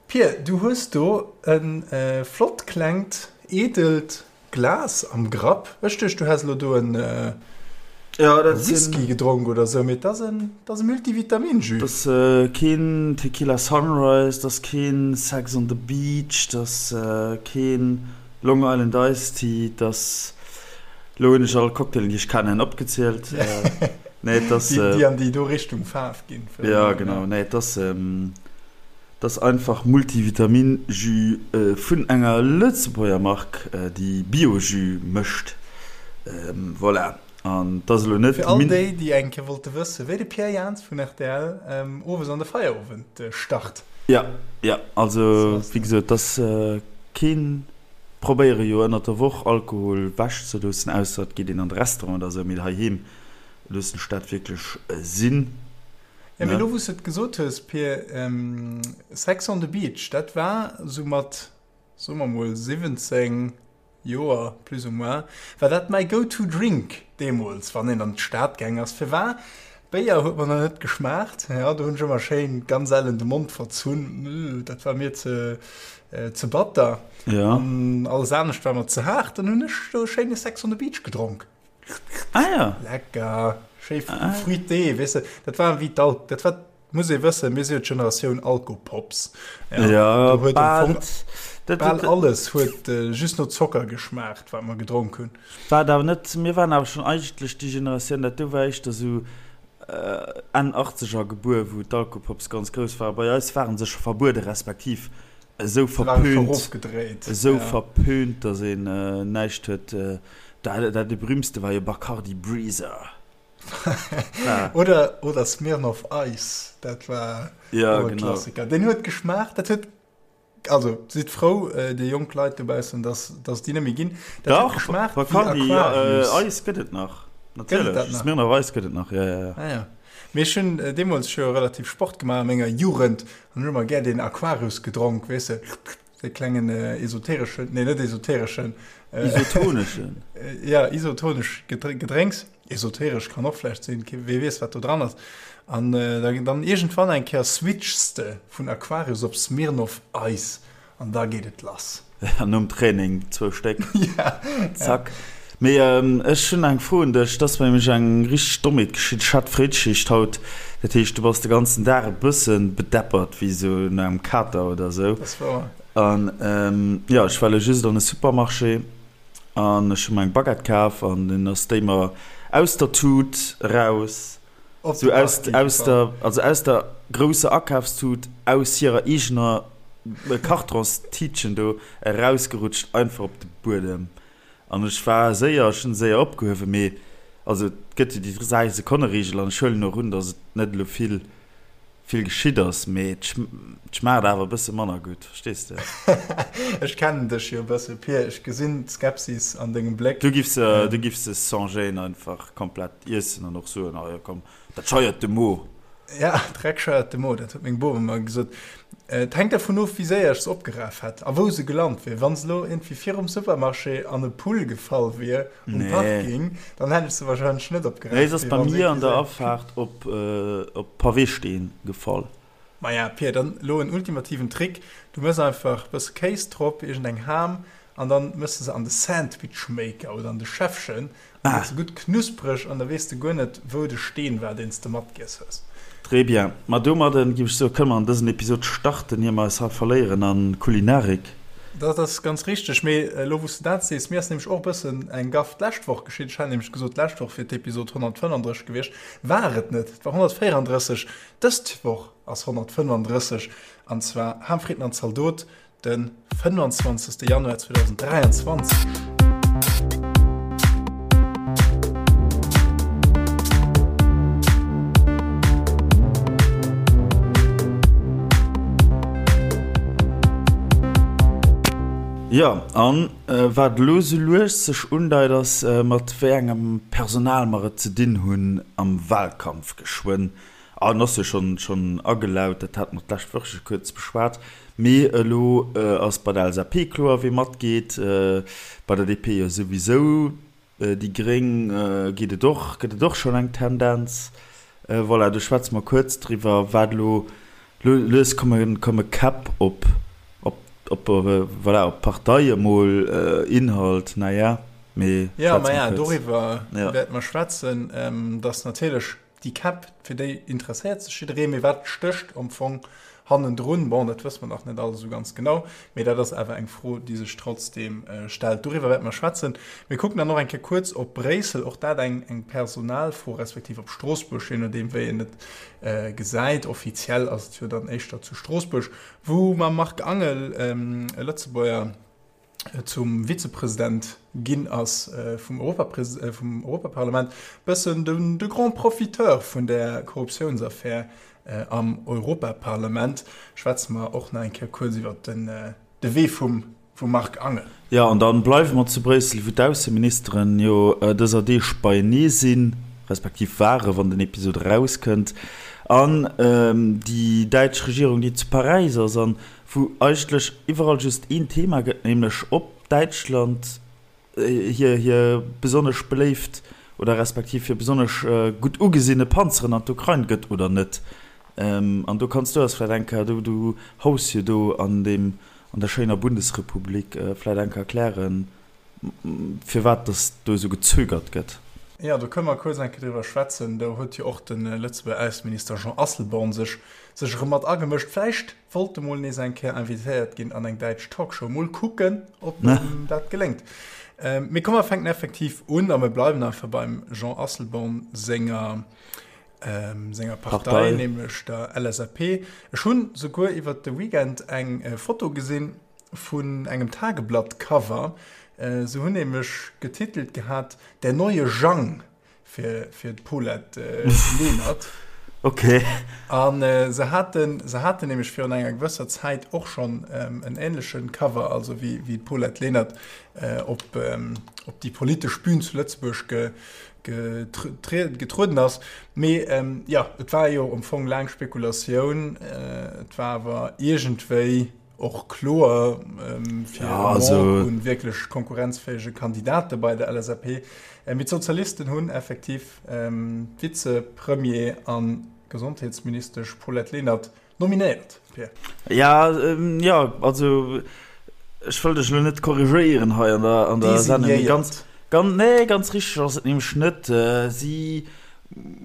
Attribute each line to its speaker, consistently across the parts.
Speaker 1: Pir, du hues do e flott klengt, edelt Glas am Grapp. Ech duecht, du häss elo do en Whisky gedronk oder sou, mee et ass en, et ass e Multivitamin-Jus.
Speaker 2: Et ass keen Tequila Sunrise, et ass keen Sex on the Beach, et ass keen Long Island Iced Tea, et ass, elo hunn ech all Cocktailen, déi ech kennen, opgezielt.
Speaker 1: Nee, et ass. Déi an déi do Richtung Faarf ginn.
Speaker 2: Jo, genau. Nee, et ass. Et ass einfach Multivitamin-Jus vun enger Lëtzebuerger Mark, déi Bio-Jus mécht. Voilà. An et ass elo net.
Speaker 1: Fir all déi, déi eng Kéier wollte wëssen, wéi de Pierre Jans vun rtl owes an de Feierowend start.
Speaker 2: Jo, jo. Also, wéi gesot, et ass keen. Probéiere jo ënnert der Woch Alkohol wech ze loossen, ausser et geet een an de Restaurant oder esou, mee heiheem loossen ech dat wierklech sinn.
Speaker 1: Ja, mee lo wou s de et gesot hues, Pir, Sex on the Beach, dat war sou mat, soe mer mol 17 Joer plus ou moins, war dat mäi go-to drink deemools, wann een an d'Stad gaang ass. Firwar? Béier huet mer nach net geschmaacht, jo, do hunn ech ëmmer schéin ganz ellen de Mond verzunn, dat war mir ze, ze batter. An alles anescht war mer ze haart, dann hunn ech do e schéine Sex on the Beach gedronk.
Speaker 2: Ah ja.
Speaker 1: Lecker. Schéi ah. fruité, weess de. Dat war wéi d'Al dat war muss ee wëssen, mir si jo d'Generatioun Alkopops.
Speaker 2: Ja, ja
Speaker 1: do huet bal, dat, bal alles huet äh, just no Zocker geschmaacht, wat mer gedronk hunn.
Speaker 2: War awer net, mir waren awer schon eigentlech déi Generatioun, dat do war éischter sou äh, Enn 80er gebuer, wou d'Alkopops ganz grouss war. Bei eis waren se scho verbuede respektiv esou verpönt, esou ja. verpönt, dass een äh, näischt huet. Äh, dat, dat de berühmtste war jo Bacardi Breezer.
Speaker 1: oder, oder Smirnoff Ice, dat war
Speaker 2: ja, genau.
Speaker 1: Klassiker. Den huet geschmaacht, dat huet also sidd frou äh, déi jonk Leit dobaussen, dass, dass déi net méi ginn.
Speaker 2: Dat Dach, huet geschmaacht Bacardi äh, Ice gëtt et nach. Natierlech. Smirnoff Ice gëtt et nach, ja, ja,
Speaker 1: ja. Ah, ja. Mee ech hunn deemools scho relativ Sport gemaach a menger Jugend an hunn ëmmer gär deen Aquarius gedronk, weess de, dee klengen esotereschen, nee net esotereschen,
Speaker 2: Isotoneschen.
Speaker 1: Ja, isotonesch Gedrénks. Esoteresch kann och vläicht sinn, wee weess wat do dran ass. An dann iergendwann eng Kéier switchs de vun Aquarius op Smirnoff Ice An da geet et lass.
Speaker 2: An nom Training zwou Stéck. Ja. Zack. Mee ech hunn eng Fro un dech. Et ass mir nämlech eng richteg Dommheet geschitt. Ech hat Fréischicht haut. Dat heescht, du bass de ganzen Dag e bësse bedeppert, wéi esou no engem Kater oder esou.
Speaker 1: Dat ass wouer.
Speaker 2: An jo, ech war elo just an e Supermarché an ech hu mer eng Baguette kaf an dunn ass déi mer aus der Tut eraus, esou aus, aus der, also aus der grousser Akafstut, aus hirer eegener Kartonstiitchen do erausgerutscht, einfach op de Buedem. An ech war séier, ech hunn se séier opgehuewen, mee also et gëtt jo déi 3 Sekonne-Reegel an ech huelen och un, datt et net elo vill, vill geschitt ass, mee et schmaacht awer e bësse manner gutt, verstees de?
Speaker 1: Ech kennen dech jo e bësse, Pir, ech gesinn d'Skepsis an dengem Bléck.
Speaker 2: Du giffs se, du giffs se sans gêne einfach komplett iessen an och soen, ah jo komm, dat scheiert de Mo.
Speaker 1: Ja, Dreck scheiert de Mo, dat huet meng Bom ëmmer gesot. Et hänkt dervun of, wéi séier ech se opgeraf hätt a wou se gelant wier. Wa se elo iergendwéi virum Supermarché an e Pull gefall wier um
Speaker 2: Nee.
Speaker 1: Parking, dann hätt ech se warscheinlech net opgeraf.
Speaker 2: Nee, se ass bei mir an der Afaart op Paweesteen gefall.
Speaker 1: Maja, Pir, dann elo en ultimativen Trick, Du mëss einfach e bësse Kéis drop, iergendeng Ham, an dann mëss de se an de Sandwichmaker oder an de Schäffchen, an da gëtt se gutt knuspreg an da weess de guer net, wou de Steen war, deen s de matgiess hues.
Speaker 2: Très bien. Ma domadden, giff ech soen, kënne mer an dësen Episod starten, ier mer eis hei verléieren an Kulinarik.
Speaker 1: Dat ass ganz richteg. Mee elo wou s de dat sees, mir ass nämlech och e bëssen eng Gaff d'lescht Woch geschitt. Ech hat nämlech gesot, d'lescht Woch wier d'Episod 135 gewiescht. War et net. Et war 134. Dëst Woch ass 135, an zwar Ham, Fritten an Zaldot. De 25. Januar 2023.
Speaker 2: Jo, an wat elo sou lues sech undeit, ass, mat wéi engem Personal mer et ze dinn hunn am Wahlkampf geschwënn. An ass jo schonn schonn agelaut, dat hate mer d'lescht Woch scho kuerz beschwat. Mee elo ass bei der LSAP kloer, wee matgeet, bei der DP jo souwisou, déi Gréng geet et och, gëtt et och schonn eng Tendenz. Voilà, do schwätze mer kuerz driwwer, wat elo. Lues komme Käpp op, op, voilà, op d'Partei emol, Inhalt, naja,
Speaker 1: mee schwätze mer kuerz. Doriwwer wäerte mer schwätzen, dass natierlech déi Käpp, fir déi interesséiert sech jidderee, mee wat stécht am Fong hannendrun? Bon, dat wësse mer nach net alles esou ganz genau, mee dat ass awer eng Fro, déi sech trotzdeem stellt. Doriwwer wäerte mer schwätzen. Mir kucken dann och eng Kéier kuerz op Bréissel, och dat eng Personalfro, respektiv op Stroossbuerg, je nodeem wéi een et gesäit. Offiziell ass et jo dann éischter zu Stroossbuerg, wou mam Marc Angel e Lëtzebuerger zum Vizepresident ginn ass vum Europaparlament, bëssen de grand Profiteur vun där Korruptiounsaffär am Europaparlament. Schwätze mer och nach eng Kéier kuerz iwwer de Wee vum Vum Marc Angel.
Speaker 2: Jo, an dann bleiwe mer zu Bréissel, wou d'Ausseministeren jo dëser Deeg beienee sinn, respektiv ware wann den Episod erauskënnt, an déi däitsch Regierung, déi zu Paräis ass, an wou eigentlech iwwerall just een Thema gëtt, nämlech ob Däitschland hir hir besonnesch beléift oder respektiv hir besonnesch gutt ugesinne Panzeren an d'Ukrain gëtt oder net. An do kanns du eis vläicht eng Kéier, du du haus jo do an deem an der schéiner Bundesrepublik, vläicht eng Kéier erklären, firwat dass do esou gezögert gëtt.
Speaker 1: Jo, do kënne mer kuerz eng Kéier driwwer schwätzen. Do huet jo och de Lëtzebuerger Ausseminister Jean Asselborn sech sech erëm mat agemëscht. Vläicht wollt e mol nees eng Kéier invitéiert ginn an eng däitsch Talkshow. Mol kucken, ob em dat geléngt. Mee komm, mer fänken effektiv un a mir bleiwen einfach beim Jean Asselborn senger senger Partei, Partei, nämlech der LSAP. Ech hunn souguer iwwert de Weekend eng Foto gesinn vun engem Tageblatt-Cover. Se hunn nämlech getitelt gehat, Der neue Jang fir, fir d'Paulette Lenert.
Speaker 2: Okay.
Speaker 1: An se haten, se haten nämlech virun enger gewësser Zäit och schonn en änleche Cover, also wéi, wéi d'Paulette Lenert op, op déi politesch Bühn zu Lëtzebuerg ge, getrueden ass. Mee jo, et war jo am Fong laang Spekulatioun. Et war awer iergendwéi och kloer fir e Manque un wierklech konkurrenzfäege Kandidate bei der LSAP. Mee d'Sozialisten hunn effektiv d'Vizepremier a Gesondheetsministesch Paulette Lenert Nominéiert,
Speaker 2: Pir. Ja, jo, also ech wëll dech elo net korrigéieren hei an der, an der Sendung, mee ganz, ganz, nee, ganz richteg ass et nämlech net. Si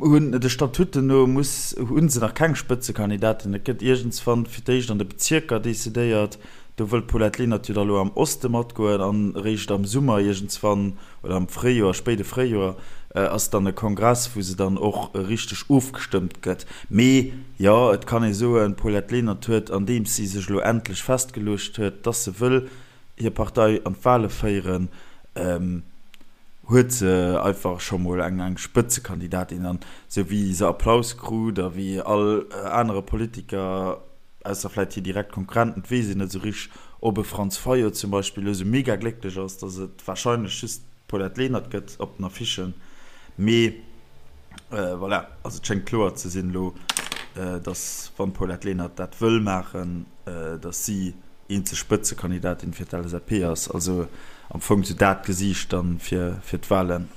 Speaker 2: hunn, de Statuten no muss, hu se nach keng Spëtzekandidatin. Et gëtt iergendswann fir d'éischt an de Bezierker decidéiert. Do wëll d'Paulette Lenert jo da lo am Oste matgoen an eréischt am Summer iergendswann oder am Fréijoer, spéide Fréijoer, ass dann e Kongress, wou se dann och richteg ofgestëmmt gëtt. Mee jo, et kann ee soen, d'Paulette Lenert huet, andeems si sech elo endlech festgeluecht huet, dass se wëll hir Partei an d'Wale féieren, huet se einfach scho mol eng eng Spëtzekandidatin. An esou wéi se Applaus krut a wéi all anere Politiker, ausser vläit hir direkt Konkurrenten, et weess een net esou richteg, ob e Franz Fayot zum Beispill elo esou mega glécklech ass, datt et warscheinlech just d'Paulette Lenert gëtt op den Affichen. Mee voilà, also et schéngt kloer ze sinn elo, datt wann d'Paulette Lenert dat wëll maachen, datt si eenzeg Spëtzekandidatin fir d'LSAP ass. Also am Fong esou dat Gesiicht dann fir d'Wahlen.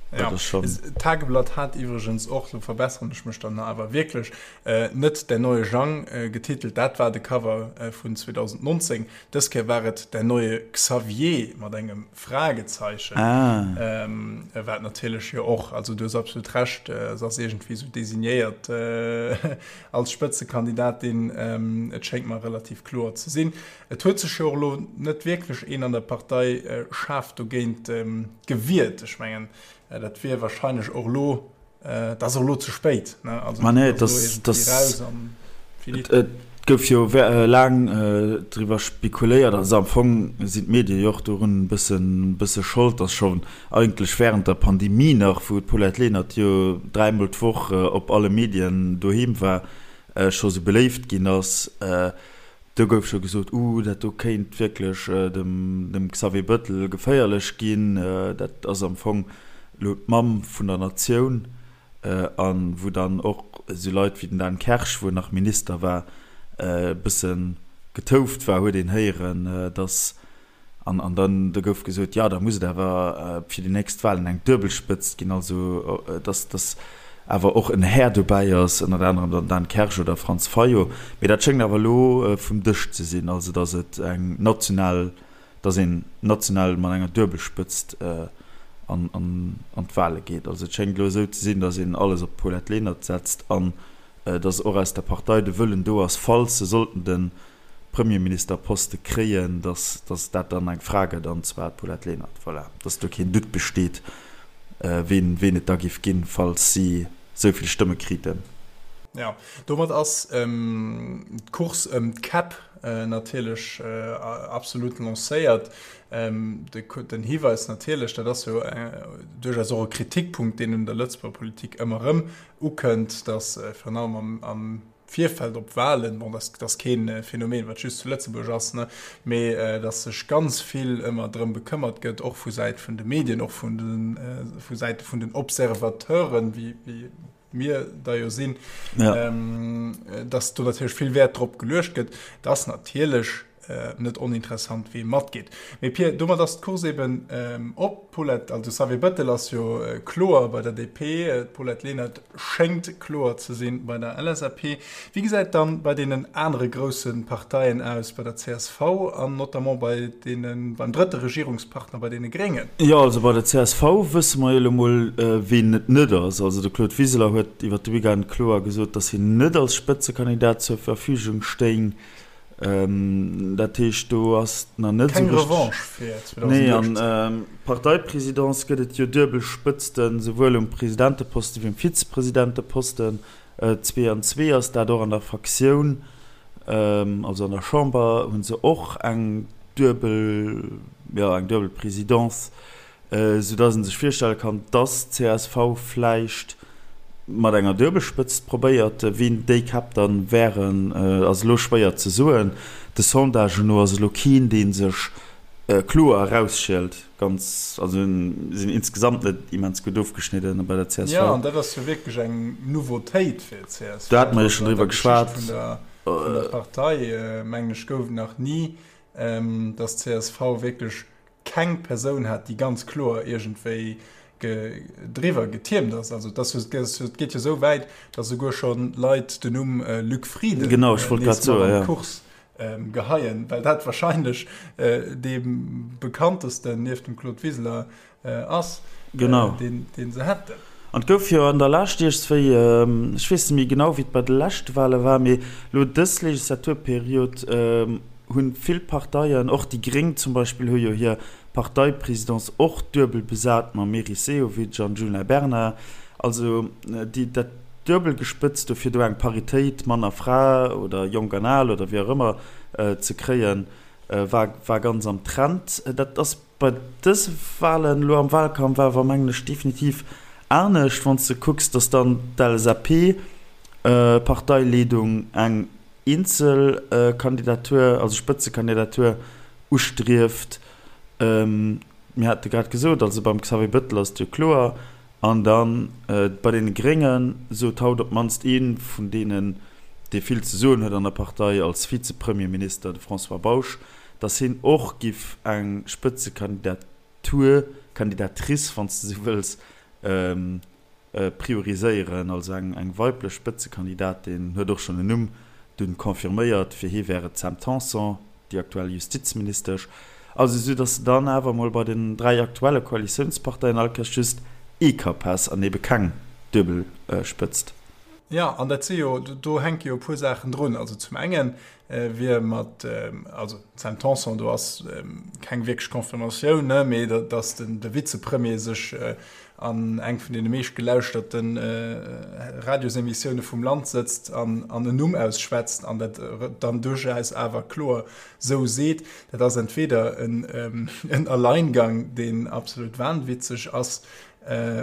Speaker 1: Ja, d'Tageblatt hat iwwregens och, lo verbesseren ech mech dann awer wierklech, net Der neue Jang getitelt, dat war de Cover vun 2019. Dës Kéier war et Der neue Xavier mat engem Fragezeichen, wat natierlech jo och, also du hues absolut Recht, se ass iergendwéi esou designéiert als Spëtzekandidatin, et schéngt mer relativ kloer ze sinn. Et huet sech jo och elo net wierklech een an der Partei schaarf dogéint gewiert. Ech mengen, dat wier wahrscheinlech och elo, et ass och elo ze spéit, ne? Also
Speaker 2: Ma nee, et ass elo iergendwéi raus an finito. Et gouf jo laang driwwer spekuléiert, also am Fong sinn d'Medie jo och dorun e bëssen, bësse Schold, datt schonn eigentlech wärend der Pandemie nach, wou d'Paulette Lenert jo dräimol d'Woch op alle Medien doheem war, scho sou beléift ginn ass. Do gouf scho gesot, Uh, dat do kéint wierklech dem Xavier Bëttel geféierlech ginn. Dat ass am Fong elo d'Mamm vun der Natioun. A wou dann och esou Leit wéi den Dan Kersch, wou en nach Minister war, e bësse getouft war, huet een héieren, datt An, an dann, do gouf gesot, jo, da muss et awer fir déi nächst Wahlen eng duebel Spëtzt ginn, also dass, dass. awer och en Här dobäi ass, ënnert anerem dann Dan Kersch oder Franz Fayot. Mee dat schéngt awer elo vum Dësch ze sinn, also datt et eng national, datt een national mat enger Duebelspëtzt an an d'Wale geet. Also et schéngt elo esou ze sinn, datt een alles op d'Paulette Lenert setzt an datt och aus der Partei de Wëllen do ass, falls se sollten de Premierministerposte kréien, datt datt dat dann eng Fra gëtt, an zwar d'Paulette Lenert. Voilà, datt do keen Doute besteet, ween ween et da géif ginn, falls si esou vill Stëmme kriten.
Speaker 1: Jo, domat ass d'Course ëm d'Käpp natierlech absolut lancéiert. Den Hiweis natierlech, dat ass jo duerchaus och e Kritikpunkt, deen un der Lëtzebuerger Politik ëmmer erëm ukënnt, datt virun allem am Virfeld op Wahlen, bon, dat ass kee Phänomen, wat just zu Lëtzebuerg ass, ne, mee datt sech ganz vill ëmmer drëm bekëmmert gëtt, och vu Säit vun de Medien, och vun de vu Säite vun den Observateuren, wéi wéi mir der jo sinn, datt do natierlech vill Wäert drop geluecht gëtt, datt natierlech net oninteressant wee matgeet. Mee Pir, domat ass d'Course eben op. D'Paulette, also Xavier Bettel ass jo kloer bei der DP, d'Paulette Lenert schéngt kloer ze sinn bei der LSAP. Wéi gesäit dann bei deenen anere grousse Parteien aus, bei der csv an notamment bei deene, beim drëtte Regierungspartner, bei deene Gréngen?
Speaker 2: Jo, also bei der csv wësse mer jo elo mol, ween et net ass. Also de Claude Wiseler huet iwwer de Weekend kloer gesot, datt hien net als Spëtzekandidat zur Verfügung stéing. Dat heescht, do ass nach net
Speaker 1: esou richteg. Keng Revanche fir
Speaker 2: 2018. Nee, an d'Parteipresidence gëtt et jo duebel Spëtzten, souwuel um Presidenteposten wéi um Vizepresidenteposten. 2 an 2 ass dat och an der Fraktioun, also an der Chamber hu se och eng duebel, jo, eng duebel Presidence. Sou dass een sech virstelle kann, dass csv vläicht mat enger Duebelspëtzt probéiert. Wien déi Käpp dann wären, ass elo schwéier ze soen. De Sondagen no ass elo keen, dee sech kloer erausschielt. Ganz, also sinn insgesamt net immens gutt ofgeschnidden bei der csv.
Speaker 1: Jo, an dat ass jo wierklech eng Nouveautéit fir d'CSV.
Speaker 2: Do hate mer jo schonn driwwer geschwat.
Speaker 1: An der Geschicht vun der Partei, mengen ech, gouf et nach ni, dass d'CSV wierklech keng Persoun hat, déi ganz kloer iergendwéi driwwer getiermt ass. Also et ass jo, et geet jo esou wäit, datt esouguer scho Leit den Numm Luc Frieden
Speaker 2: genau, ech wollt grad soen,
Speaker 1: ja. Course geheien, well dat wahrscheinlech dee bekanntesten nieft dem Claude Wiseler ass,
Speaker 2: genau.
Speaker 1: deen, deen se hätten.
Speaker 2: An et gouf jo an der Lescht iergendswéi, ech weess net méi genau, wéi et bei de leschte Wale war, mee elo dës Legislaturperiod, hunn vill Parteien, och déi Gréng zum Beispill hu jo hir Parteipresidence och duebel besat mam Meris Sehovic an Djuna Bernard. Also déi, dat duebel gespëtzt do fir do eng Paritéit, Mann a Fra oder Jonk an Al oder wéi och ëmmer, ze kréien, war, war ganz am Trend. Dat ass bei dëse Wahlen elo am Wahlkampf awer, mengen ech, definitiv anescht, wann s de kucks, datt dann d'LSAP-Parteileedung eng eenzel Kandidatur, also Spëtzekandidatur ustrieft. Mir hate grad gesot, also beim Xavier Bettel ass et jo kloer. An da bei deene Grénge sot haut op d'mannst ee vun deenen, dee vill ze soen huet an der Partei als Vizepremierminister, de François Bausch, datt hien och giff eng Spëtzekandidatur, Kandidatrice, wann s de esou wëlls, prioriséieren, also eng weiblech Spëtzekandidatin, huet och schonn en Numm dunn confirméiert, fir hie wär et d'Sam Tanson, déi aktuell Justizministesch. Also esou datt de dann awer emol bei den 3 aktuelle Koalitiounsparteien all Kéiers just ee Kapp häss an ebe keng duebel Spëtzt.
Speaker 1: Jo, an dat si jo, do hänke jo e puer Saachen drun. Also zum engen wier mat, also d'Sam Tanson, do ass keng wierklech Confirmatioun, ne, mee datt den de Vizepremier sech an eng vun deene meescht gelauschterte Radiosemissioune vum Land sëtzt an an en Numm ausschwätzt an dat dann duerchaus awer kloer sou seet, dat ass entweder en en Alleingang, deen absolut wahnwitzeg ass,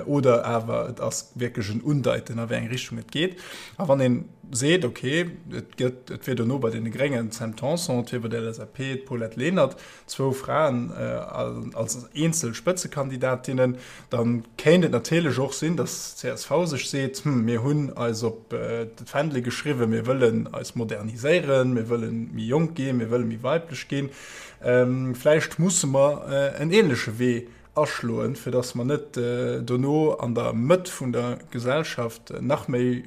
Speaker 1: Oder awer et ass wierklech en Undeiten, a wéi eng Richtung et geet. A wann ee seet, okay, et gëtt, et wier dono bei deene Gréngen d'Sam Tanson, et wier bei der LSAP d'Paulette Lenert, zwou Fraen als eenzel Spëtzekandidatinnen, da kéint et natierlech och sinn, datt csv sech seet, Hm, mir hunn eis op d'Fändele geschriwwen, mir wëllen eis moderniséieren, mir wëlle méi jonk ginn, mir wëlle méi weiblech ginn, vläicht musse mer en änleche Wee. aschloen, fir datt mer net dono an der Mëtt vun der Gesellschaft nach méi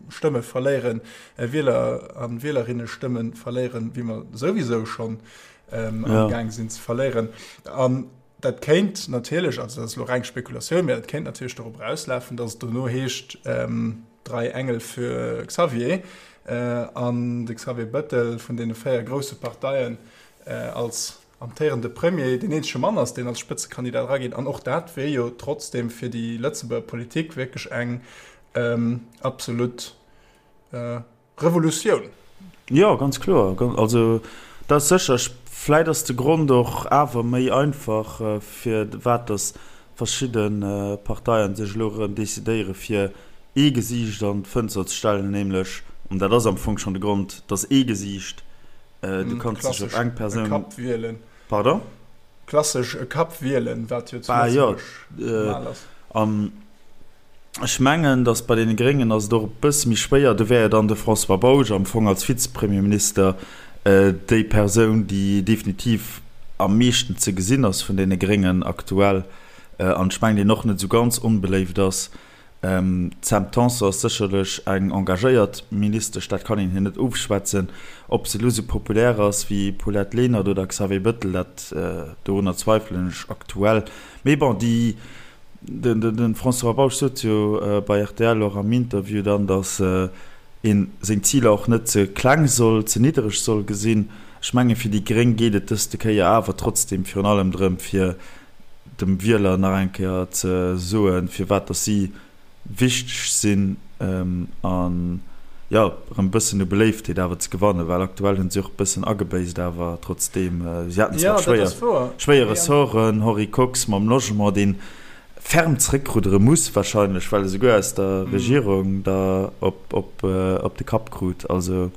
Speaker 1: Stëmme verléieren, Wieler a Wielerinnestëmme verléieren, wéi mer souwisou schonn amgaang sinn ze verléieren. An dat kéint natierlech, also dat ass elo reng Spekulatioun, mä dat kéint natierlech dorop erauslafen, datt et dono heescht, Drei Engel für Xavier an de Xavier Bettel vun deene 4 grousse Parteien als amtéierende Premier deen eenzege Mann ass, deen als Spëtzekandidat erageet. An och dat wier jo trotzdeem fir déi Lëtzebuerger Politik wierklech eng absolut Revolutioun.
Speaker 2: Jo, ganz kloer. Also dat ass sécher. Vläit ass de Grond och awer méi einfach, firwat datt verschidde Parteien sech elo erëm decidéiere fir ee Gesiicht an d'Fënster ze stellen, nämlech, an dat ass am Fong schonn de Grond, datt ee Gesiicht, du kanns dech op eng Persoun.
Speaker 1: Klassesch e Kapp wielen.
Speaker 2: Pardon?
Speaker 1: Klassesch e Kapp wielen, wat jo zu Lëtzebuerg normal ass.
Speaker 2: An ech mengen, datt bei deene Gréngen ass et och e bësse méi schwéier. Do wär jo dann de François Bausch am Fong als Vizepremierminister déi Persoun, déi definitiv am meeschten ze gesinn ass vun deene Gréngen aktuell an ech mengen, deen och net esou ganz onbeléift ass. D'Sam Tanson ass sécherlech eng engagéiert Ministesch, dat kann een hir net ofschwätzen. Ob se elo esou populär ass wéi Paulette Lenert oder Xavier Bëttel, dat dorunner zweifelen ech aktuell. Mee bon, déi, de François Bausch sot jo bei rtl och am Interview dann, datt ee seng Ziler och net ze kleng soll, ze niddereg soll gesinn. Ech menge fir déi Gréng geet et dëste Kéier awer trotzdeem virun allem drëm, fir dem Wieler nach eng Kéier ze soen, firwat dass si wichteg sinn an, jo, erëm e bëssen u Beléiftheet awer ze gewannen, well aktuell hunn si och e bëssen agebéisst, awer trotzdeem, si haten zwar schwéier, schwéier Ressorten, Henri Kox mam Logement, deen ferm zréckruddere muss wahrscheinlech, well e souguer aus der Regierung der op, op, op de Kapp krut, also.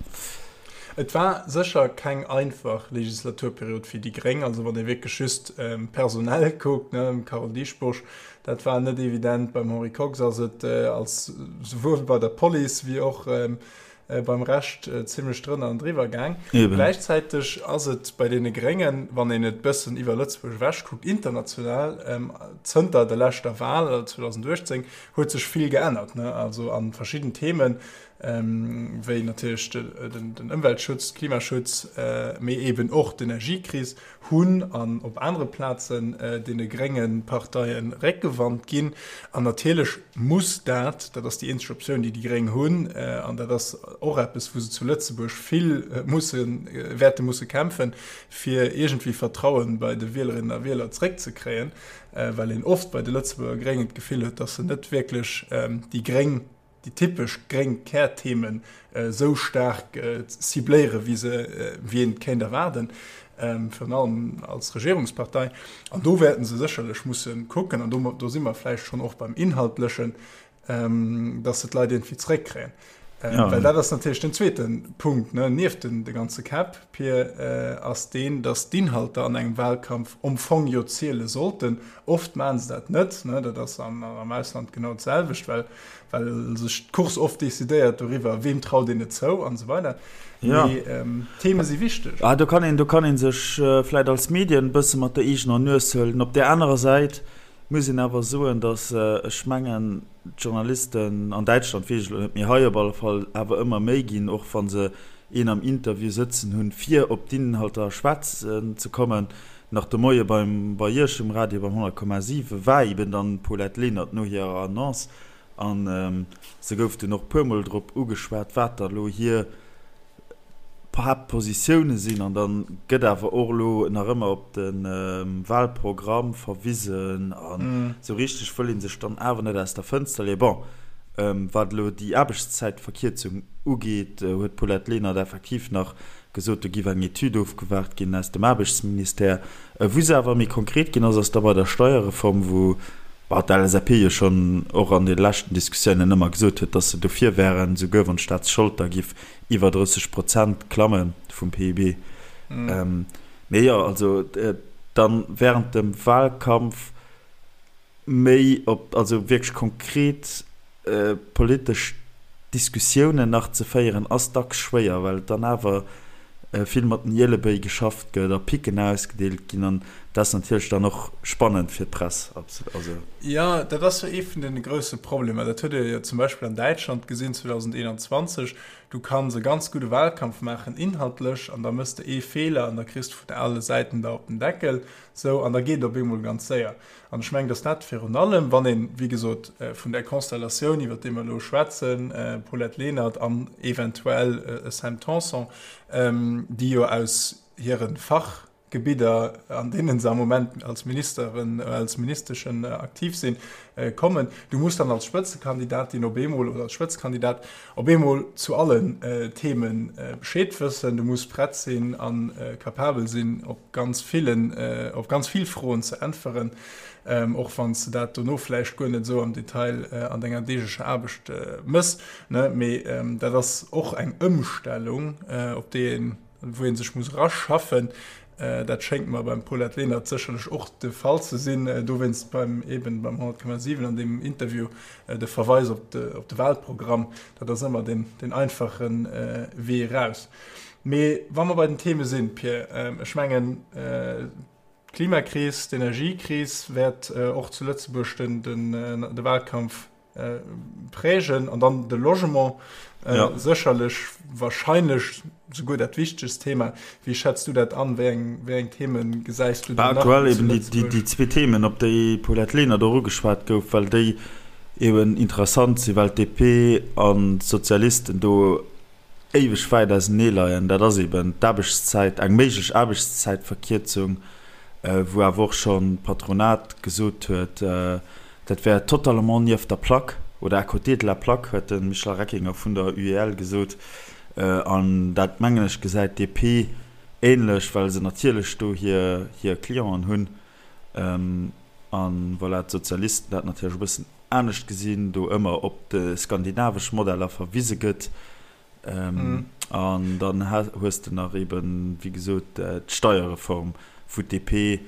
Speaker 1: Et war sécher keng einfach Legislaturperiod fir déi Gréng. Also wann ee wierklech just personell kuckt, ne, Carole Dieschbourg, dat war net evident. Beim Henri Kox ass et als souwuel bei der Police wéi och beim Rescht zimlech drënner an driwwer gaang. Gläichzäiteg ass et bei deene Gréngen, wann een et bëssen iwwer Lëtzebuerg ewech kuckt, international, zënter der leschter Wal, also 2018, huet sech vill geännert, ne, also a verschidden Themen, wéi natierlech den Ëmweltschutz, Klimaschutz, mee eeben och d'Energiekris, hunn an op anere Plazen deene grénge Parteie Réckgewand ginn. An natierlech muss dat, dat ass déi eenzeg Optioun, déi déi Gréng hunn, an dat ass och eppes, wou se zu Lëtzebuerg vill mussen, wäerte musse kämpfen, fir iergendwéi Vertrauen bei de Wielerinnen a Wieler zréckzekréien, well een oft bei de Lëtzebuerger Gréngen d'Gefill huet, datt se net wierklech déi gréng déi typesch gréng Kärthemen esou staark cibléieren, wéi se, wéi een et kéint erwaarden, virun allem als Regierungspartei. An do wäerten se sécherlech musse kucken, an do, do si mer vläicht schonn och beim Inhaltlechen, dass se d'Leit iergendwéi zeréckkréien. Well dat ass natierlech den zweete Punkt, ne, nieft den, de ganze Käpp, Pir, ass deen, dass d'Inhalter an engem Wahlkampf am Fong jo ziele sollten. Oft maachen se dat net, ne, dat ass am Ausland genau d'selwecht, well, well sech d'Course oft decidéiert doriwwer, weem traut een et zou an esou weider.
Speaker 2: Ja.
Speaker 1: Mee d'Theme si wichteg.
Speaker 2: Ah, do kann een, do kann ee sech vläicht als Medien e bësse mat der eegener Nues huelen. Op där anerer Säit muss een awer soen, datt ech mengen, d'Journalisten an Däitschland, weess ech elo net, mee hei op alle Fall awer ëmmer méi ginn, och wa se een am Interview sëtzen hunn, fir op d'Inhalter schwätzen ze kommen. Nach de Moie beim, bei Iech um Radio beim 100,7 war eben dann d'Paulette Lenert no hirer Annonce an se gouf dunn och puermol drop ugeschwat, wat da lo hir Haaptpositioune sinn. An da gëtt awer och elo nach ëmmer op de Wahlprogramm verwisen an esou richteg wëll ee sech dann awer net aus der Fënster leeën. Bon, wat elo déi Aarbechtszäitverkierzung ugeet, huet d'Paulette Lenert effektiv nach gesot, do géif eng Etüd ofgewaart ginn aus dem Aarbechtsministère. Wou se awer méi konkret ginn ass, ass da bei der Steierreform, wou d'LSAP jo schonn och an de leschten Diskussiounen ëmmer gesot huet, datt se dofir wären, souguer wann d'Staatsschold da giff iwwer 30 Prozent klamme vum PIB. Mee jo, also dann während dem Wahlkampf méi op, also wierklech konkret politesch Diskussiounen nach ze féieren, ass dacks schwéier, well et dann awer. vill mat den Ielebéi geschafft gëtt a Picken ausgedeelt ginn an dat ass natierlech dann och spannend fir d'Press.
Speaker 1: Also. Jo, dat ass jo ee vun de grousse Problemer. Dat huet ee jo zum Beispill an Däitschland gesinn 2021. Du kanns e ganz gudde Wahlkampf maachen inhaltlech an da mëss de ee Feeler an da kriss de vun alle Säiten der op den Deckel. Sou, an da geet et op eemol ganz séier. An ech mengen, dass dat virun allem, wann een, wéi gesot, vun där Konstellatioun, iwwert déi mer elo schwätzen, Paulette Lenert an eventuell e Sam Tanson, déi jo aus hire Fachgebidder, an deene se am Moment als Ministeren, als Ministeschen aktiv sinn, kommen, du muss dann als Spëtzekandidatin op eemol oder als Spëtzekandidat op eemol zu allen Theme Bescheed wëssen, du muss prett sinn a capabel sinn, op ganz villen, op ganz vill Froen ze äntweren, och wann s de dat dono vläicht guer net esou am Detail an denger deeglecher Aarbecht mëss. Mee dat ass och eng Ëmstellung, op déi een, wou ee sech muss eraschaffen. Dat schéngt mer beim Paulette Lenert sécherlech och de Fall ze sinn. Dowéinst beim, eben beim 100,7 an deem Interview de Verweis op de, op de Wahlprogramm. Dat ass ëmmer deen, deen einfache Wee eraus. Mee wa mer bei den Theme sinn, Pir, ech mengen, d'Klimakris, d'Energiekris wäert och zu Lëtzebuerg den, den, de Wahlkampf prägen an dann de Logement sécherlech, wahrscheinlech souguer dat wichtegst Thema. Wéi schätz du dat an? Wéi eng, wéi eng Theme gesäis du do
Speaker 2: nach Aktuell eben déi, déi, déi zwee Themen, op déi d'Paulette Lenert och ugeschwat gouf, well déi eben interessant sinn, well d'DP an d'Sozialisten do éiweg wäit ausenee leien, dat ass eben d'Aarbechtszäit, eng méiglech Aarbechtszäitverkierzung, wou awer och schonn d'Patronat gesot huet, dat wär totalement nieft der Plaque oder à côté de la plaque, huet de Michel Reckinger vun der UEL gesot. An dat, mengen ech, gesäit d'DP änlech, well se natierlech do hir Clienten hunn. A voilà, d'Sozialisten dat natierlech e bëssen anescht gesinn, do ëmmer op de skandinavesch Modeller verwise gëtt. An dann hues de nach eben, wéi gesot, d'Steierreform, wou d'DP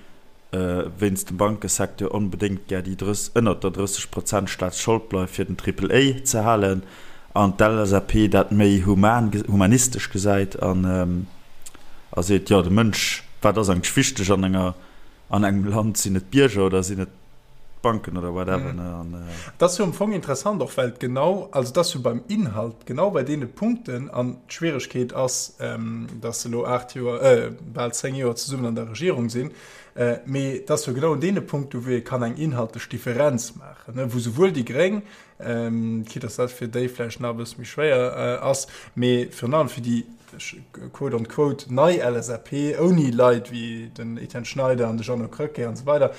Speaker 2: wéinst dem Bankesecteur onbedéngt gär déi ënnert der 30 Prozent Staatsschold bleift, fir den Triple A ze halen, an d'LSAP dat méi human, humanistesch gesäit an a seet, jo, de Mënsch, wat ass eigentlech wichteg an enger, an engem Land, sinn et d'Bierger oder sinn et d'Banken oder whatever, ne, an.
Speaker 1: Et ass jo am Fong interessant och, well et genau, also et ass jo beim Inhalt genau bei deene Punkten, an d'Schwieregkeet ass, datt se elo 8 Joer, bal 10 Joer zesummen an der Regierung sinn, mee et ass jo genau un deene Punkten, wou ee kann eng inhaltlech Differenz maachen, ne, wou souwuel déi Gréng, quitte dass dat fir déi vläicht nach e bësse méi schwéier ass, mee virun allem fir déi quote on quote nei LSAP, ouni Leit wéi den Etienne Schneider an de Jeannot Krecké an esou weider,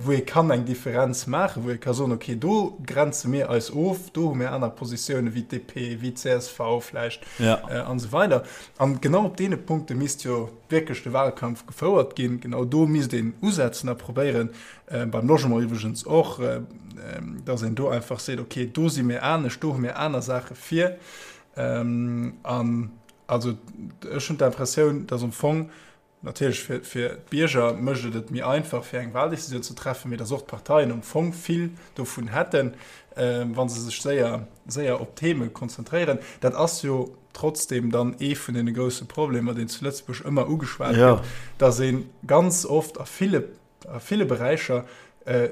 Speaker 1: wou ee kann eng Differenz maachen, wou ee ka soen, okay, do grenze mir eis of, do hu mir aner Positiounen wéi d'DP, wéi d'CSV vläicht an esou weider. An genau op deene Punkte misst jo wierklech de Wahlkampf gefouert ginn. Genau do misst een usetzen a probéieren, Beim Logement iwwregens och, dass een do einfach seet, okay, do si mir anescht, do hu mir aner Saache vir. An also ech hunn d'Impressioun, dass am Fong natierlech fir, fir d'Bierger mécht et et méi einfach, fir eng Wahldecisioun ze treffen, mee dass och d'Parteien am Fong vill dovun hätten, wa se sech séier, séier op Theme konzentréieren. Dat ass jo trotzdem dann ee vun deene grousse Problemer, deen zu Lëtzebuerg ëmmer ugeschwat gëtt, dass ee ganz oft a ville a ville Beräicher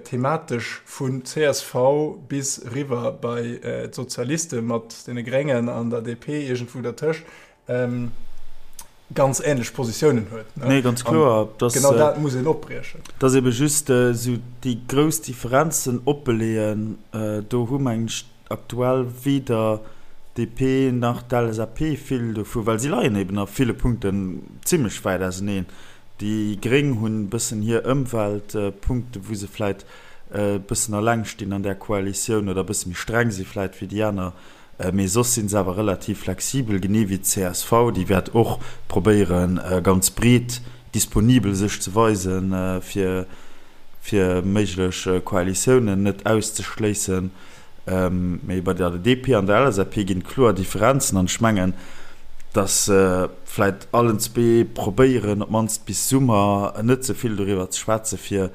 Speaker 1: thematesch vun csv bis eriwwer bei d'Sozialiste mat deene Gréngen an der DP iergendwou dertëscht, ganz änlech Positiounen huet.
Speaker 2: Nee, ganz kloer.
Speaker 1: Genau dat muss een opbriechen.
Speaker 2: Et ass ebe just esou déi grouss Differenzen oppeleeën, do hu mengen ech aktuell weder DP nach d'LSAP vill dovu, well si leien eben a ville Punkten zimlech wäit auseneen. Déi Gréng hunn e bëssen hir Ëmweltpunkte wou se vläit e bëssen alleng stinn an där Koalitioun oder e bësse méi streng si vläit wéi déi aner, mee soss si se awer relativ flexibel, genee wéi d'CSV, déi wäert och probéieren ganz breet disponibel sech ze weisen, fir fir méiglech Koalitiounen net auszeschléissen. Mee bei der DP an der LSAP ginn et kloer Differenzen an ech mengen, datt se vläit allen zwee probéieren, op d'mannst bis Summer net ze vill doriwwer ze schwätzen, fir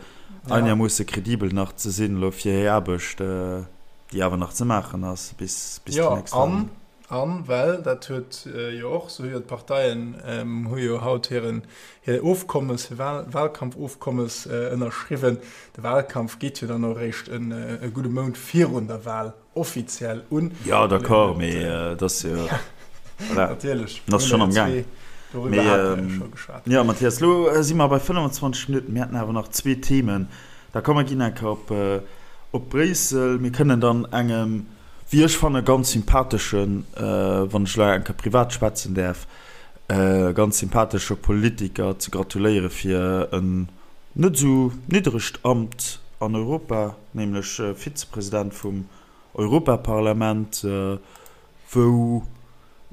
Speaker 2: einermoosse kredibel nach ze sinn elo fir hir Aarbecht, déi awer nach ze maachen ass bis déi nächst
Speaker 1: Wahlen. An well, dat huet jo och, sou jo d'Parteien hu jo haut hiren, hir Ofkommes, hir Wahl, Wahlkampfofkommes ënnerschriwwen. De Wahlkampf geet jo dann och eréischt e gudde Mount virun der Wahl offiziell un.
Speaker 2: Jo, d'accord, mee et ass jo, voilà,
Speaker 1: Natierlech,
Speaker 2: en ass schonn am Gaang.
Speaker 1: Doriwwer hate mer jo scho geschwat.
Speaker 2: Jo, Mathias, elo si mer bei 25 Minutten. Mir hätten awer nach zwee Themen. Da komm, mer ginn eng Kéier op, op Bréissel. Mir kënnen dann engem, wéi ech fannen, ganz sympatheschen, wann ech elo eng Kéier privat schwätzen däerf, ganz sympathesche Politiker ze gratuléiere fir en net esou niddregt Amt an Europa, nämlech Vizepresident vum Europaparlament, wou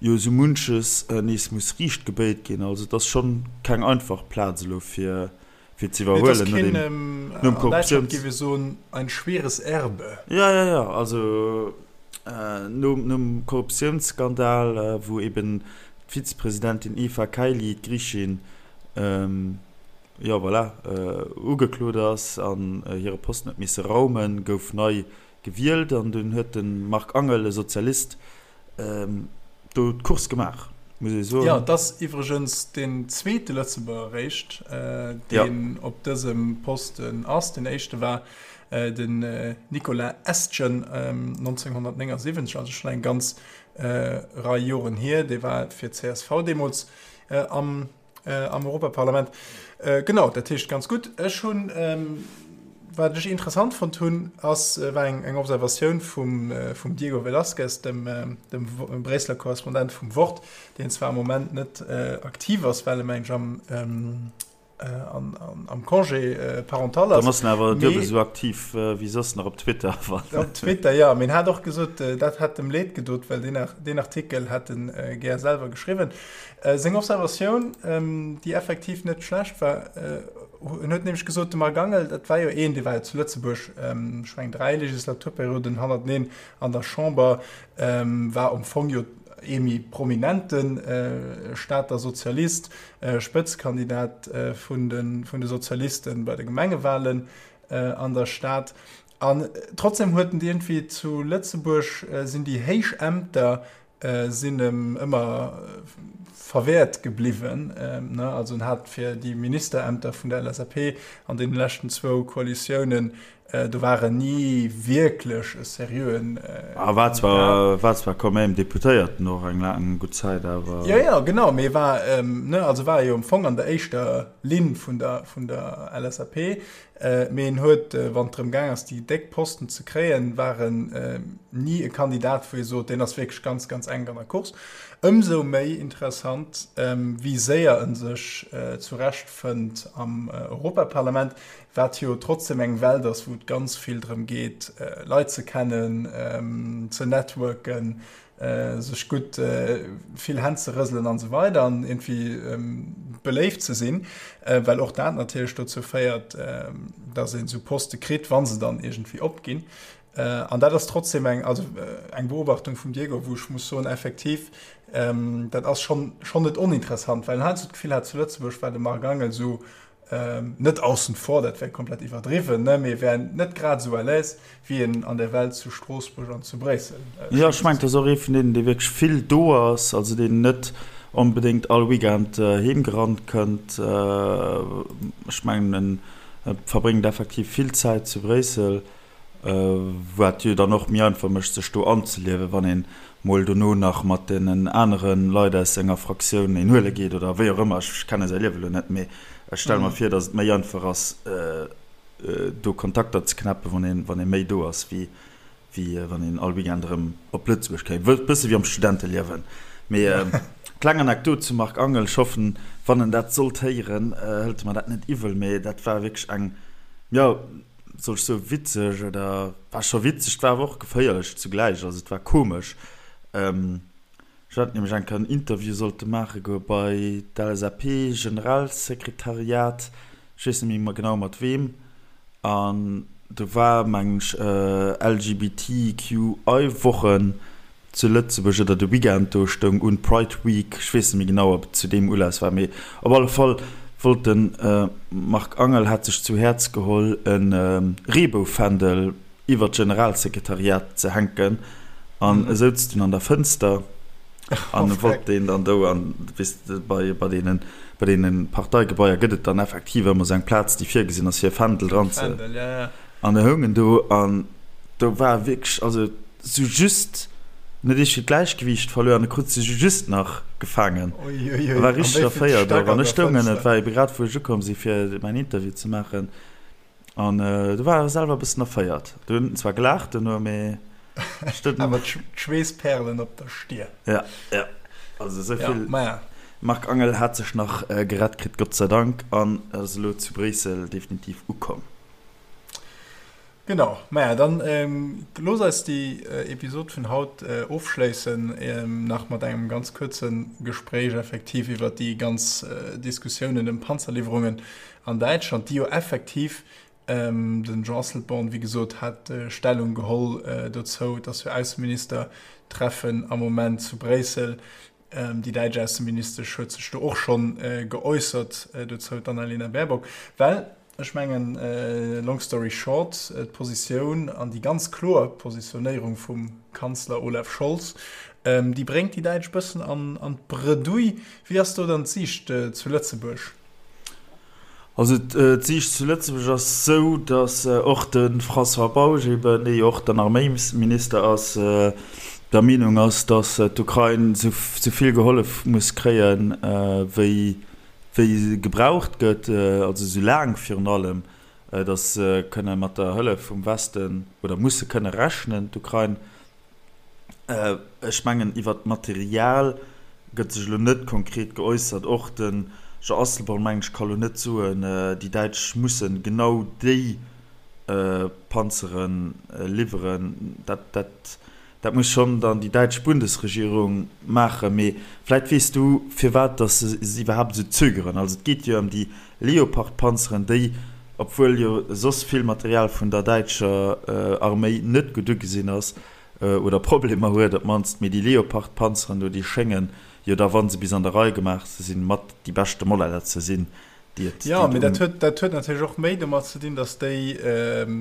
Speaker 2: jo esou munches nees muss riicht gebéit ginn. Also et ass schonn keng einfach Plaz elo fir fir ze iwwerhuelen
Speaker 1: no dem nom Korruptiouns. An Däitschland géif ee soen, ein schweres Erbe.
Speaker 2: Jo, jo, jo, also nom nom Korruptiounsskandal, wou eben d'Vizepresidentin Eva Kaili, d'Griichin, jo voilà, ugeklot ass an hire Posten huet misse raumen, gouf nei gewielt an dunn huet de Marc Angel, e Sozialist, do d'Course gemaach, muss ee soen.
Speaker 1: Jo, et ass iwwregens deen zweete Lëtzebuerger eréischt, deen op dësem Posten ass. Deen éischte war den Nicolas Estgen 1979, also schonn eng ganz Rei Joren hier. Dee war fir d'CSV deemools am am Europaparlament. Genau, dat heescht ganz gutt. Ech hunn, wat ech interessant fonnt hunn, ass, war eng, eng Observatioun vum, vum Diego Velázquez, dem, dem Bréisseler Korrespondent vum Wort, deen zwar am Moment net aktiv ass, well e meng ech am, an, an, am Congé parental
Speaker 2: ass. Dann ass en awer duebel esou aktiv wéi soss nach op Twitter.
Speaker 1: Op Twitter, jo. Mee en hat och gesot, dat hätt em Leed gedot, well deen, deen Artikel hätt en gär selwer geschriwwen. Seng Observatioun, déi effektiv net schlecht war, en huet nämlech gesot, de Marc Angel, dat war jo een, dee war jo zu Lëtzebuerg, ech mengen 3 Legislaturperioden hannerteneen an der Chamber, war am Fong jo ee méi prominente Stater Sozialist, Spëtzkandidat vun de Sozialiste bei de Gemengewahlen an der Stad. An trotzdem huet en iergendwéi zu Lëtzebuerg sinn déi héich Ämter sinn em ëmmer verwäert gebliwwen. Also en hat fir déi Ministerämter vun der LSAP an deene leschten zwou Koalitiounen, do war en ni wierklech e seriöen
Speaker 2: Kandidat. War zwar, war zwar quand même Deputéierten och eng laang gutt Zäit, awer.
Speaker 1: Jo, jo, genau, mee war, ne, also war e jo am Fong an der éischter Linn vun der, vun der LSAP. Mee en huet, wann et drëm gaang ass, déi déck Posten ze kréien, war en ni e Kandidat, wou ee sot, deen ass wierklech ganz, ganz enk an der Course. Ëmsou méi interessant, wéi séier e sech zurechtfënnt am Europaparlament, wat jo trotzdem eng Welt ass, wou et ganz vill drëm geet, Leit ze kennen, ze networken, sech gutt vill Hänn ze rëselen an esou weider an iergendwéi beléift ze sinn, well och dat natierlech dozou féiert, datt een esou Poste kritt, wa se dann iergendwéi opginn. An dat ass trotzdem eng, also eng Beobachtung vum Diego, wou ech muss soen, effektiv, dat ass schonn schonn net oninteressant, well en heiansdo d'Gefill hat, zu Lëtzebuerg war de Marc Angel esou Net aussen vor, dat wär komplett iwwerdriwwen, ne, mee wär net grad esou à l'aise, wéi en an der Welt zu Stroossbuerg an zu Bréissel
Speaker 2: Jo, ech mengen, et ass och ee vun deenen, dee wierklech vill do ass, also deen net onbedéngt all Weekend heem gerannt kënnt. Ech mengen, en verbréngt effektiv vill Zäit zu Bréissel. Wat jo dann och méi einfach mécht, sech do anzeliewen, wann een mol dono nach mat deenen anere Leit aus senger Fraktioun een huele geet oder wéi och ëmmer. Ech kenne säi Liewe lo net, mee ech stelle mer vir, datt et méi einfach ass, do Kontakter ze knäppen, wann een, wann ee méi do ass, wéi wéi wann een all Weekend erëm op Lëtzebuerg kéim. E bësse wéi am Studenteliewen. Mee kleng Anekdot zum Marc Angel, ech hoffen, wann en dat sollt héieren, hëlt e mer dat net iwwel, mee dat war wierklech eng, jo, soll ech soen, witzeg oder war scho witzeg, war awer och geféierlech zugläich, also et war komesch. Ech hat nämlech eng Kéier en Interview sollte maache goe bei d'LSAP-Generalsekretariat, ech weess net méi genau mat weem, an do war mengen ech LGBTQI-Woche zu Lëtzebuerg oder de Weekend do stoung un, Pride Week, ech weess net méi genau, ob et zu deem Ulass war, mee op alle Fall wollt de Marc Angel, hat sech zu Häerz geholl, e Reeboufändel iwwer d'Generalsekretariat ze hänken an e souz dunn an der Fënster. An oh, wollt deen dann do an weess de bei bei deenen bei deenen Parteigebaier gëtt et dann effektiv ëmmer sou eng Plaz déi virgesinn ass fir e Fändel dran ze
Speaker 1: Fändel, ja, ja.
Speaker 2: An e houng en do an do war wierklech also sou just net eescht fir d'Gläichgewiicht verluer an e krut sech just nach gefaangen.
Speaker 1: Ui, ui, ui.
Speaker 2: War
Speaker 1: An
Speaker 2: richteg
Speaker 1: wéi vill
Speaker 2: erféiert
Speaker 1: Stack
Speaker 2: och
Speaker 1: an
Speaker 2: an ech
Speaker 1: der
Speaker 2: stoungen et
Speaker 1: Fënster?
Speaker 2: war ebe grad wou ech ukomm si fir mäin Interview ze maachen. An do war e selwer e bëssen erféiert. Do hunn en zwar gelaacht duerno, mee
Speaker 1: Awer d'Schweessperlen op der Stier.
Speaker 2: Ja, ja. Also esou
Speaker 1: Ja,
Speaker 2: vill.
Speaker 1: maja.
Speaker 2: Marc Angel hat sech nach gerett kritt, Gott sei Dank, an ass elo zu Bréissel definitiv ukomm.
Speaker 1: Genau, maja, dann looss eis déi Episod vun haut ofschléissen nach mat engem ganz kuerze Gespréich effektiv iwwert déi ganz Diskussiounen ëm Panzerliwwerungen an Däitschland, déi jo effektiv, den Jean Asselborn, wéi gesot, hat Stellung geholl dozou, et ass jo Ausseministertreffen am Moment zu Bréissel, déi däitsch Ausseministesch huet sech do och schonn geäussert dozou, d'Annalena Baerbock, well ech mengen, long story short, d'Positioun an déi ganz kloer Positionéierung vum Kanzler Olaf Scholz, déi bréngt déi Däitsch bëssen an d'Bredouille. Wéi ass do dann d'Siicht zu Lëtzebuerg?
Speaker 2: Also d'Siicht zu Lëtzebuerg ass esou, datt och de François Bausch eben, dee jo och dann Arméisminister ass, der Meenung ass, datt d'Ukrain esou vill gehollef muss kréien, wéi gebraucht gëtt, also esou laang virun allem, datt se kënne mat der Hëllef vum Westen oder musse kënne rechnen, d'Ukrain. Ech mengen, iwwert d'Material gëtt sech elo net konkret geäussert. Och de Jean Asselborn, mengen ech, ka elo net soen, déi Däitsch mussen genau déi Panzere liwweren. Dat, dat muss schonn dann déi däitsch Bundesregierung maachen. Mee vläicht weess du, firwat datt se iwwerhaapt esou zögeren. Also et geet jo ëm déi Leopard-Panzeren, déi, obwuel jo soss vill Material vun der däitscher Arméi net gutt ugesinn ass, oder Problemer huet op d'mannst, mee déi Leopard-Panzeren do, déi schéngen jo da, wa se bis an der Rei gemaach sinn, mat déi beschte Modeller ze sinn, déi et,
Speaker 1: Jo,
Speaker 2: déi et
Speaker 1: mee dat
Speaker 2: um.
Speaker 1: huet, dat huet natierlech och méi domat ze dinn, datt déi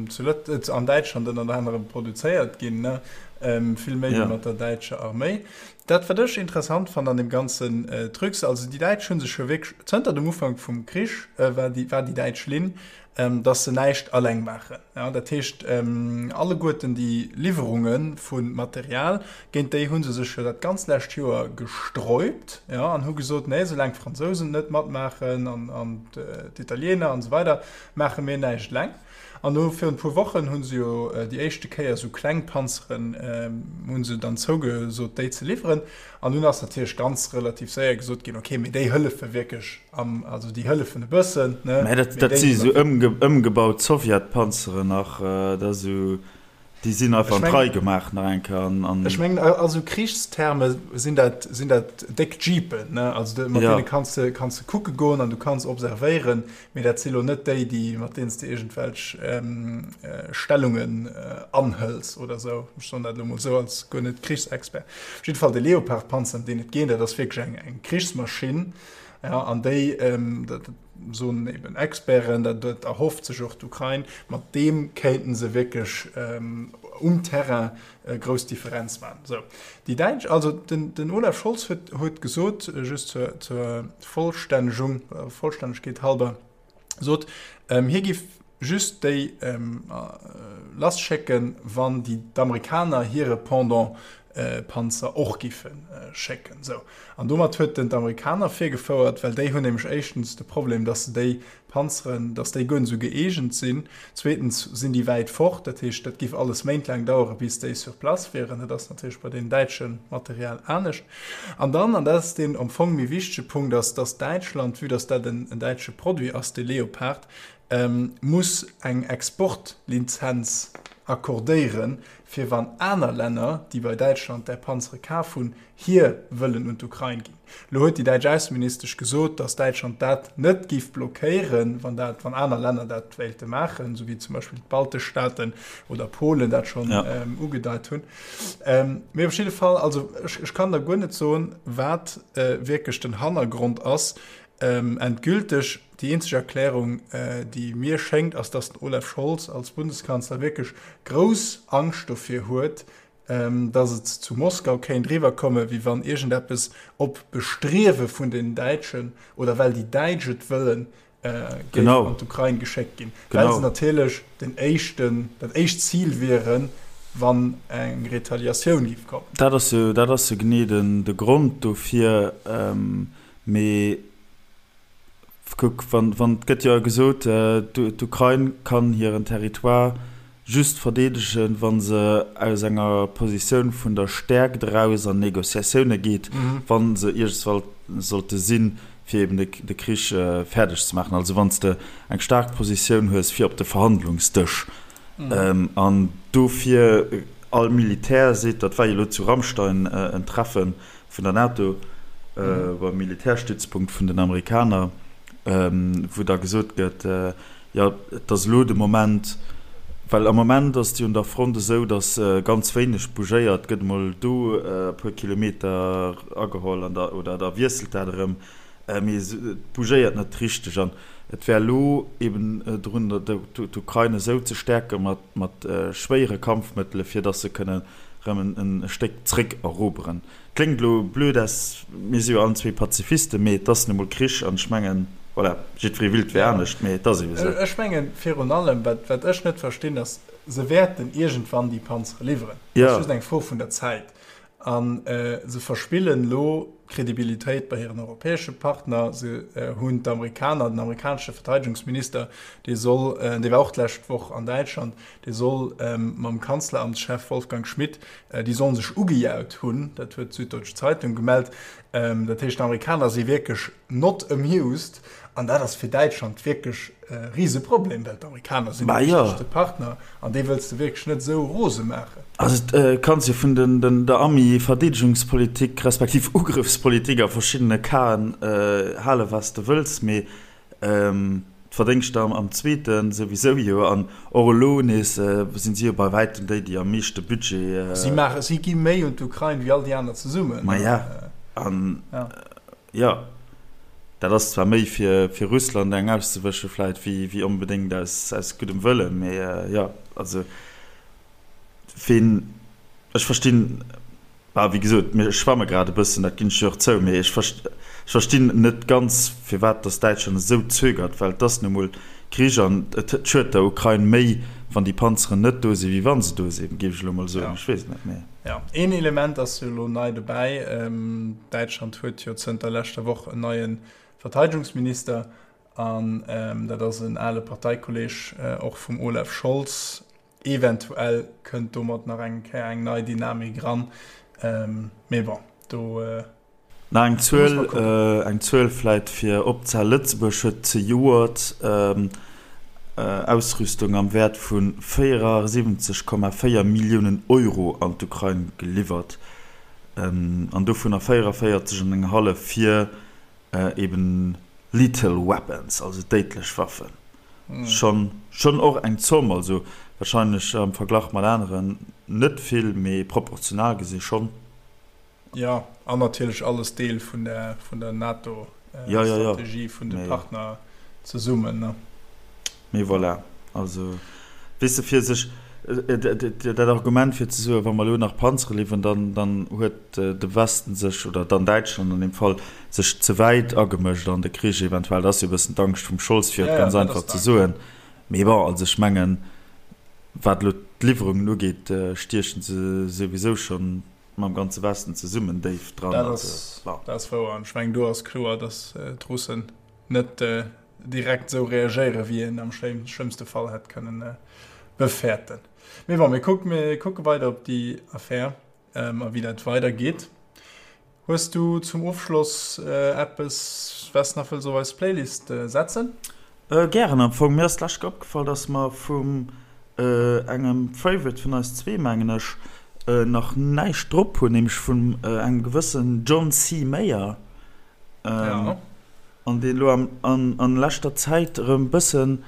Speaker 1: zu Lët-, an Däitschland ënnert anerem produzéiert ginn, ne, vill méi wéi
Speaker 2: Ja.
Speaker 1: mat der däitscher Arméi. Dat, wat ech interessant fannen an deem ganzen Trucs, also déi Däitsch hu sech jo wierklech, zënter dem Ufank vum Krich war déi, war déi däitsch Linn, dass se näischt alleng maachen. Dat heescht, alleguerten déi Liwwerunge vu Material, géint déi hu se sech jo dat ganz lescht Joer gesträubt an hu gesot, nee, soulaang d'Fransousen net matmaachen an d'Italiener an esou weider, maache mir näischt eleng. An elo virun e puer Wochen hu se jo déi éischte Kéier esou kleng Panzeren, hu se dann zougesot, déi ze liwweren. An dunn ass natierlech ganz relativ séier gesot ginn, okay, mee déi hëllefe wierklech am, also déi hëllefen e bëssen, ne?
Speaker 2: Mä dat, dat si esou ëmgebaut Sowjetpanzeren nach, dat ass esou, déi sinn einfach an d'Rei gemaach nach eng Kéier an, an.
Speaker 1: Ech mengen, a sou Krichsterme sinn dat, sinn dat déck Jeepen, ne? Also mat deene kanns de, kanns de kucke goen an du kanns observéieren, Mee dat si lo net déi, déi, mat deenen s de iergendwelch Stellungen anhëls oder esou. Ech soen dat elo mol esou als guer net Krichsexpert. Op jidde Fall, de Leopard-Panzer, ëm deen et geet, dat ass wierklech eng, eng Krichsmaschinn. Ja, an déi, dat soen eben Experten, dat, dat erhofft sech och d'Ukrain, mat deem kéinten se wierklech um Terrain grouss Differenz maachen. Sou, déi Däitsch, also den, den Olaf Scholz huet, huet gesot, just zur, zur Vollstännegung, Vollstännegkeet halber, sot, hie giff just déi lasschécken, wann déi d'Amerikaner hire Pendant Panzer och giffe schécken. Sou, an domat huet en d'Amerikaner virgefouert, well déi hunn nämlech éischtens de Problem, datt se déi Panzeren, datt déi guer net esou gëeegent sinn. Zweetens sinn déi wäit fort, dat heescht, dat giff alles méintlaang dauere bis déi sur place wieren. Dat ass natierlech bei deem däitsche Material anescht. An dann, an dat ass deen am Fong méi wichtege Punkt, ass, datt Däitschland, vue datt dat en däitsche Produit ass, dee Leopard, muss eng Exportlizenz accordéieren, fir wann aner Länner, déi bei Däitschland där Panzere kaf hunn, hir wëllen un d'Ukrain ginn. Elo huet déi däitsch Ausseministesch gesot, datt Däitschland dat net géif blockéieren, wann dat, wann aner Länner dat wéilte maachen, esou wéi zum Beispill d'baltesch Staaten oder Polen dat schonn ugedeit hunn. Mee op jidde Fall, also ech, ech kann der guer net soen, wat wierklech den Hannergrond ass. Endgülteg, déi eenzeg Erklärung, déi mir schéngt, ass, datt den Olaf Scholz als Bundeskanzler wierklech grouss Angscht dovir huet, Datt et zu Moskau kéint eriwwerkomme wéi wann iergendeppes op Bestriewe vun den Däitschen oder well déi Däitsch et wëllen, géif an d'Ukrain geschéckt ginn, well se natierlech den éischten, dat éischt Zil wieren, wann eng Retaliatioun géif kommen.
Speaker 2: Dat ass jo, dat ass jo genee den, de Grond dofir. Mee kuck, wann, wann, et gëtt jo gesot, d'Ukrain kann hiren Territoire just verdeedegen, wa se aus enger Positioun vun der Stäerkt eraus an Négociatioune geet, wa se iergendswall sollte sinn, fir eben de Krich fäerdeg ze maachen. Also wann s de eng staark Positioun hues fir op de Verhandlungsdësch. An dofir, all Militär seet, dat war jo elo zu Ramstein en Treffe vun der NATO beim Militärstützpunkt vun den Amerikaner, wou da gesot gëtt, Jo, et ass elo de Moment, well am Moment ass et jo un der Front esou, datt ganz wéineg bougéiert gëtt, emol do e puer Kilometer ageholl an da oder da wiesselt dat erëm, mee et bougéiert net richteg. An et wär elo eben drun, d'Ukrain esou ze stäerke mat schwéiere Kampfmëttele fir datt se kënnen erëm e Stéck zréck eroberen. Kléngt elo blöd aus, mir si jo allen zwee Pazifisten, mee et ass nu mol Krich an ech mengen, voilà, jiddweree willt wär anescht, mee et ass eebe sou.
Speaker 1: Ech mengen virun allem, wat wat ech net verstinn, ass, se wäerten iergendwann déi Panzere liwweren, et ass just eng Fro vun der Zäit. A se verspillen elo Kredibilitéit bei hiren europäesche Partner. Se hunn d'Amerikaner, den amerikanesche Verteidegungsminister, dee soll, dee war och d'lescht Woch an Däitschland, dee soll mam Kanzleramtschef Wolfgang Schmidt Déi sollen sech ugejaut hunn, dat huet d'Süddeutsche Zeitung gemellt. Dat heescht, d'Amerikaner si wierklech not amused an dat ass fir Däitschland wierklech e Riseproblem, well d'Amerikaner sinn de wichtegste Partner an déi wëlls de wierklech net esou rose maachen.
Speaker 2: Also et kanns jo vun der Ami-Verdeedegungspolitik respektiv Ugrëffspolitik a verschiddene Casen hale wat s de wëlls, mee D'Verdéngschter am zweete souwisou jo an och elo nees sinn si jo bei wäitem déi, déi am meeschte Budget.
Speaker 1: Si maachen, si gi méi un d'Ukrain wéi all déi aner zesummen.
Speaker 2: Maja, an jo, dat ass zwar méi fir fir Russland eng auszewësche vläit wéi wéi onbedéngt aus aus guddem Wëllen, mee jo, also ween, ech verstinn. Bah, wéi gesot, mir schwamme grad e bëssen, dat ginn ech jo och zou, mee ech verstinn net ganz, firwat datt Däitschland esou zögert, well et ass nu emol Krich an et schued der Ukrain méi, wann déi Panzeren net do sinn, wéi wa se do sinn, géif ech elo emol soen. Ech weess et net, mee.
Speaker 1: Jo, een Element ass jo elo nei dobäi, Däitschland huet jo zënter leschter Woch en neie Verteidegungsminister an dat ass en ale Parteikolleeg och vum Olaf Scholz. Eventuell kënnt domat nach eng Kéier eng nei Dynamik eran, mee bon, do
Speaker 2: Nach eng Zuel, eng Zuel vläit fir opzehalen, Lëtzebuerg huet zejoert Ausrüstung am Wäert vu 74,4 Milliounen Euro an d'Ukrain geliwwert, an dovunner 44 an eng hallef fir eben lethal weapons, also déidlech Waffen. Schonn, schonn och eng Zomm, also wahrscheinlech am Verglach mat aneren net vill, mee proportional gesi schonn.
Speaker 1: Jo, an natierlech alles Deel vun der, vun der NATO-Strategie, vun de Partner zesummen, ne?
Speaker 2: Mee voilà, also weess de, fir sech dat Argument fir ze soen, wa mer elo nach Panzere liwweren, dann, dann huet de Westen sech, oder dann Däitschland an deem Fall, sech ze wäit agemëscht an de Krich eventuell. Dat ass jo e bëssen d'Angscht vum Scholz, fir et ganz einfach ze soen. Mee bon, also ech mengen, wat elo d'Liwwerungen ugeet, stiechen se souwisou schonn mam ganze Westen zesummen déif dran.
Speaker 1: Dat ass, dat ass wouer. An ech mengen, do ass kloer, datt d'Russen net direkt esou reagéieren, wéi een am schlëmmste Fall hätt kënnen befäerten. Mee bon, mir kucken, mir kucke weider op déi Affär a wéi dat weidergeet. Hues du zum Ofschloss eppes, wat s nach wëlls op eis Playlist setzen?
Speaker 2: Gären. Am Fong, mir ass d'lescht Kéier opgefall, dass mer vum engem Favorite vun eis zwee, mengen ech, nach näischt drop hunn, nämlech vun engem gewëssen John C. Mayer.
Speaker 1: Ja.
Speaker 2: An deen elo am, an, an leschter Zäit erëm bëssen,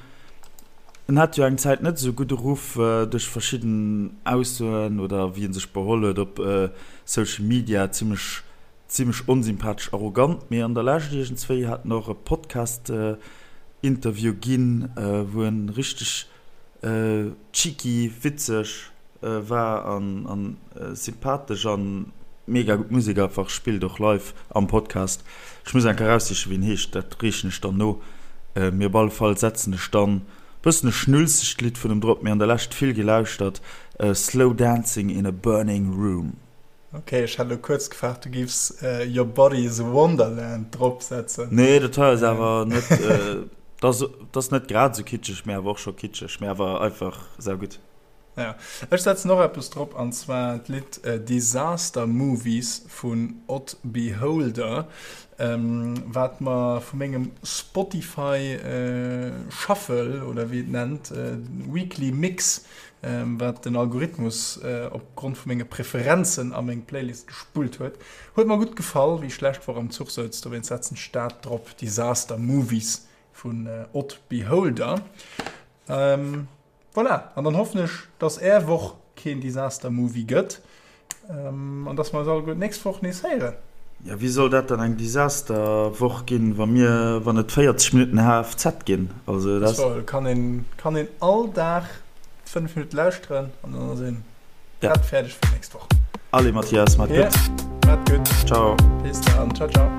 Speaker 2: en hat jo eng Zäit net esou gudde Ruff duerch verschidden Aussoen oder wéi en sech beholl huet op Social Media, zimmlech, zimmlech onsympathesch, arrogant, mee an der Lescht iergendswéi hat en och e Podcast Interview ginn, wou en richteg cheeky, witzeg. War an sympathesch an mega gutt Musek einfach, spillt och live am Podcast. Ech muss eng Kéier eraussichen wéi en heescht, dat reechen ech dann no. Mee op alle Fall setzen ech dann bëssen e schnulzegt Lidd vun em drop, mee an der Lescht vill gelauschtert, Slow Dancing in a Burning Room.
Speaker 1: Ok, ech hat elo kuerz gefaart du giffs Your Body is a Wonderland drop setzen.
Speaker 2: Nee, dat hei ass awer net, dat ass net grad esou kitscheg, mee awer och scho kitscheg, mee awer einfach saugutt.
Speaker 1: Ja, ech setzen och eppes drop, an zwar d'Lidd Disaster Movies vun Odd Beholder, wat mer vu mengem Spotify Shuffle, oder wéi et nennt, Weekly Mix, wat den Algorithmus op Grond vu menge Preferenzen a meng Playlist gespullt huet, huet mer gutt gefall, wéi ech lescht Woch am Zuch souz. Dowéinst setzen ech dat drop, Disaster Movies vun Odd Beholder. Voilà, an dann hoffen ech, dass är Woch keen Disaster Movie gëtt an dass mer eis alleguer d'nächst Woch nees héieren.
Speaker 2: Jo, wéi soll dat dann eng Disaster-Woch ginn, wa mir, wann et 40 Minutten HFZ ginn?
Speaker 1: Also dat. So, kann een, kann een all Dag 5 Minutte lauschteren an dann ass een prett fäerdeg fir d'nächst Woch.
Speaker 2: Allez Mathias, maat gutt.
Speaker 1: Maat gutt.
Speaker 2: Ciao.
Speaker 1: Bis dann. Ciao, ciao.